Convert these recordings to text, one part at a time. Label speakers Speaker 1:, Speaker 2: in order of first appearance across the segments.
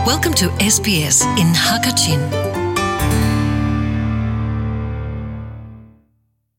Speaker 1: Welcome to SBS in Hakachin.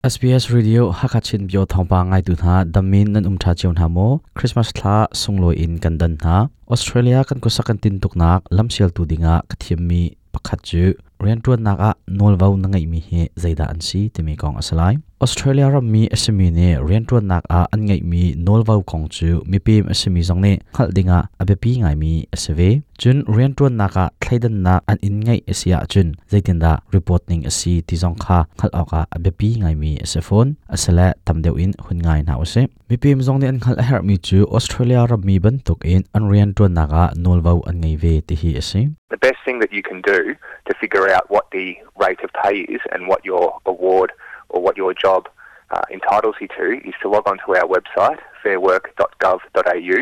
Speaker 2: SBS Radio Hakachin bio thawngpa ngaitu hna damin nan um tha chiu hna maw Christmas thla sunglawi in kan dan hna Australia kan kusak kan tin tuknak lamsial tu dinga ka thiam mi pakhat cu riantuannak ah nawlvo na ngeihmi hi zeidah an si timi kong a si lai. Australia rammi a simi nih riantuannak ah an ngeihmi nawlvo kong cu mipem a simi zong nih hngalh dingah a biapi ngaimi a si ve. Cun riantuannak ah thleidannak an in ngeih a si ahcun zeitindah report ning a si ti zong kha hngalh awkah a biapi ngaimi a si fawn. Asile tam deuh in hun ngai hna usih. Mipem zong nih an hngalh a herhmi cu Australia rammi bantukin an rianṭuannak ah nawlvo an ngei ve ti hi a si.
Speaker 3: The best thing that you can do to figure out what the rate of pay is and what your award or what your job uh, entitles you to is to log onto our website fairwork.gov.au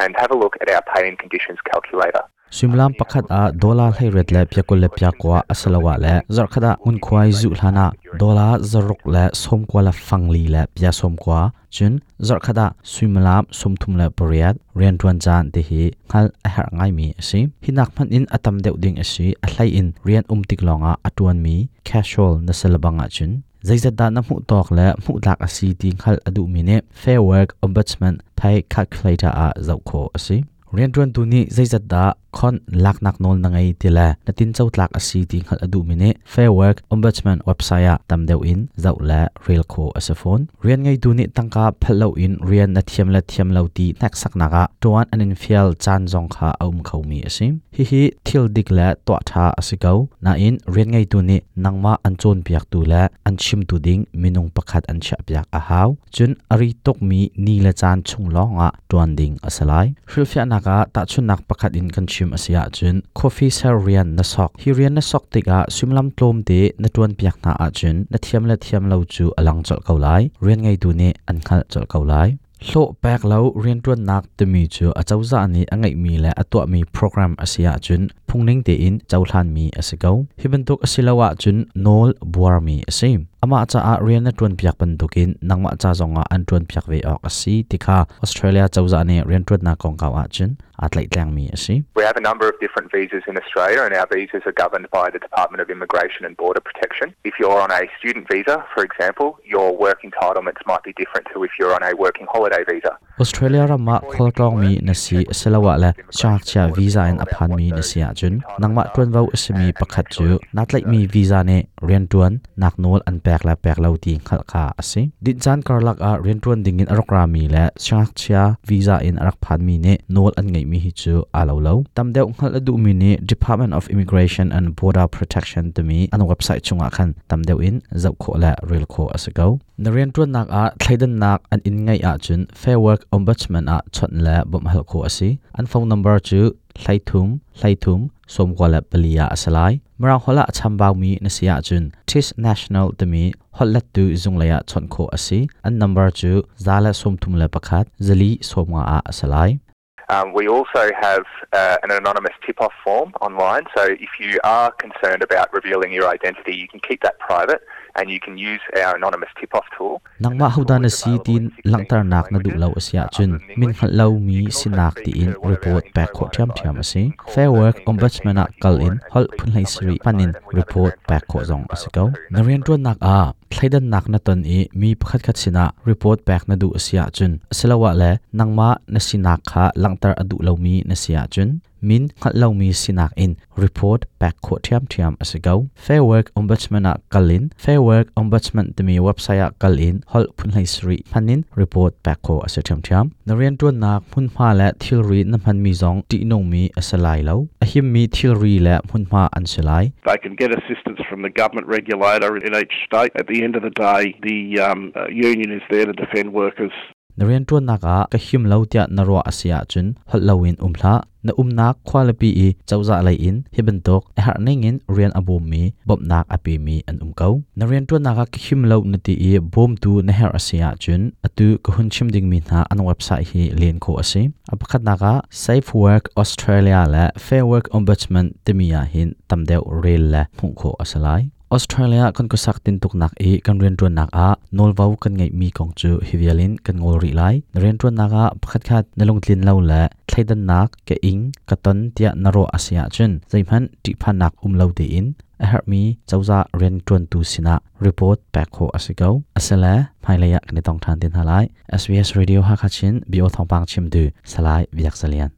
Speaker 3: and have a look at our pay and conditions calculator.
Speaker 2: Suimilam pakhat ah dollar 18 le pia 20 le pia kua asiloah le zarhkhat ah ngunkhuai zuh hlan ah dollar 6 le 90 le fang li le pia 90 cun zarhkhat ah suimilam 38 rianṭuan caan ti hi hngalh a herh ngaimi a si. Hi nak hmanh in a tam deuh ding a si. A hlei in rian um tik lawngah a ṭuanmi casual na si lebang ahcun zeizat dah na hmuh tawk le hmuh tlak a si ti hngalh a duhmi nih Fair Work Ombudsman Pay Calculator ah zoh khawh a si. Rianṭuantu nih zeizat dah khon laknak nawl na ngei ti le na tinco tlak a si ti hngalh a duhmi nih Fair Work Ombudsman website ah tam deuh in zoh le rel khawh a si fawn. Rian ngeitu nih tangka phalh loin rian na thiam le thiam lo ti hneksaknak ah ṭuan an in fial caan zong kha a um khomi a si. Hihi thil dik le tuah ṭha a si ko. Nain rian ngeitu nih nangmah an cawnpiaktu le an chimtu ding minung pakhat an chiahpiak a hau. Cun a ri tukmi ni le caan chung lawngah ṭuan ding a si lai. Hrilhfiahnak ah tahchunhnak pakhat in kan chim a si ahcun coffee ser rian na sok. Hi rian na sok tikah suimilam tlawmte na ṭuanpiak hna ahcun na thiam le thiam lo cu a lang colh ko lai. Rian ngeitu nih an hngalh colh ko lai. Hlawh pek lo rianṭuannak timi cu acozah nih a ngeihmi le a tuahmi program a si ahcun phungning tein cohlanmi a si ko. Hi bantuk a si lo ahcun nawl buarmi a si. Amah caah rian na ṭuanpiak bantukin nangmah ca zongah an ṭuanpiak ve awk a si ti kha Australia cozah nih rianṭuannak kongkau ahcun aa tlaihtlengmi a si.
Speaker 3: We have a number of different visas in Australia and our visas are governed by the Department of Immigration and Border Protection. If you're on a student visa, for example, your work entitlements might be different to if you're on a working holiday visa.
Speaker 2: Australia ram ah khualtlawngmi na si asiloah le siangngakchia visa in a phanmi na si ahcun nangmah ṭuanvo a simi pakhat cu naa tlaihmi visa nih rianṭuan nak nawl an pek le pek lo ti hngalh kha a si. Dinh caan karlak ah rianṭuan dingin a rak rami le siangngakchia visa in a rak phanmi nih nawl an ngeihmi hi cu aa lo lo. Tam deuh hngalh a duhmi nih Department of Immigration and Border Protection timi an website chungah khan tam deuh in zoh khawh le rel khawh a si ko. Na rianṭuannak ah thleidannak an in ngeih ahcun Fair Work Ombudsman ah chawnh le bawmh hal khawh a si. An phone number cu 33 33 94 ah a si lai. Mirang holh ah a chambaumi na si ahcun TIS National timi holhlettu zunglei ah chawnh khawh a si. An number cu 131 450 ah a si lai.
Speaker 3: Um, we also have uh, an anonymous tip-off form online. So if you are concerned about revealing your identity, you can keep that private and you can use our anonymous tip-off tool.
Speaker 2: Nangmah hodah na si tiin langhternak na duh lo a si ahcun min hngalh lomi sinak tiin report pek khawh ṭhiamṭhiam a si. Fair Work Ombudsman ah kal in holh phun 17 hman in report pek khawh zong a si ko. Na rianṭuannak ah thleidannak na ton i mi pakhatkhat sinah report pek na duh a si ahcun asiloah le nangmah na sinak kha langhter a duh lomi na si ahcun min hngalh lomi sinak in report pek khawh ṭhiamṭhiam a si ko. Fair Work Ombudsman ah kal in Fair Work Ombudsman timi website ah kal in holh phun 17 hman in report pek khawh a si ṭhiamṭhiam. Na rianṭuannak hmunhma le thilri na hmanmi zong ṭihnungmi a si lai lo. A himmi thilri le hmunhma an si lai.
Speaker 4: They can get assistance from the government regulator in each state. At the end of the day, the um, uh, union is there to defend workers.
Speaker 2: Na rianṭuannak ah ka him lo tiah na ruah a si ahcun holh loin um hlah. Na umnak khualipi i cozah lei in hi bantuk a herh ningin rian a bawmmi bawmhnak a pemi an um ko. Na rianṭuannak ah ka him lo na ti i bawmtu na herh a si ahcun atu ka hun chim dingmi hna an website hi len khawh a si. A pakhatnak ah Safe Work Australia le Fair Work Ombudsman timi ah hin tam deuh rel le hmuh khawh a si lai. Australia kan khuasak tintuknak i kan rianṭuannak ah nawlvo kan ngeihmi kong cu hi vial in kan ngol rih lai. Na rianṭuannak ah pakhatkhat na lungtlin lo le thleidannak ka ing ka ton tiah na ruah a si ahcun zeihmanh ṭihphannak um lo tein a herhmi cozah rianṭuantu sinah report pek khawh a si ko. Asile hmailei ah kan i tong ṭhan te hna lai. SBS Radio Hakha Chin bio thawngpang chimtu Salai Biak Zalian.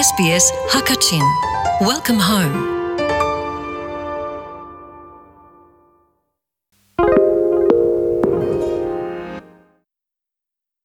Speaker 1: SBS Hakachin. Welcome home.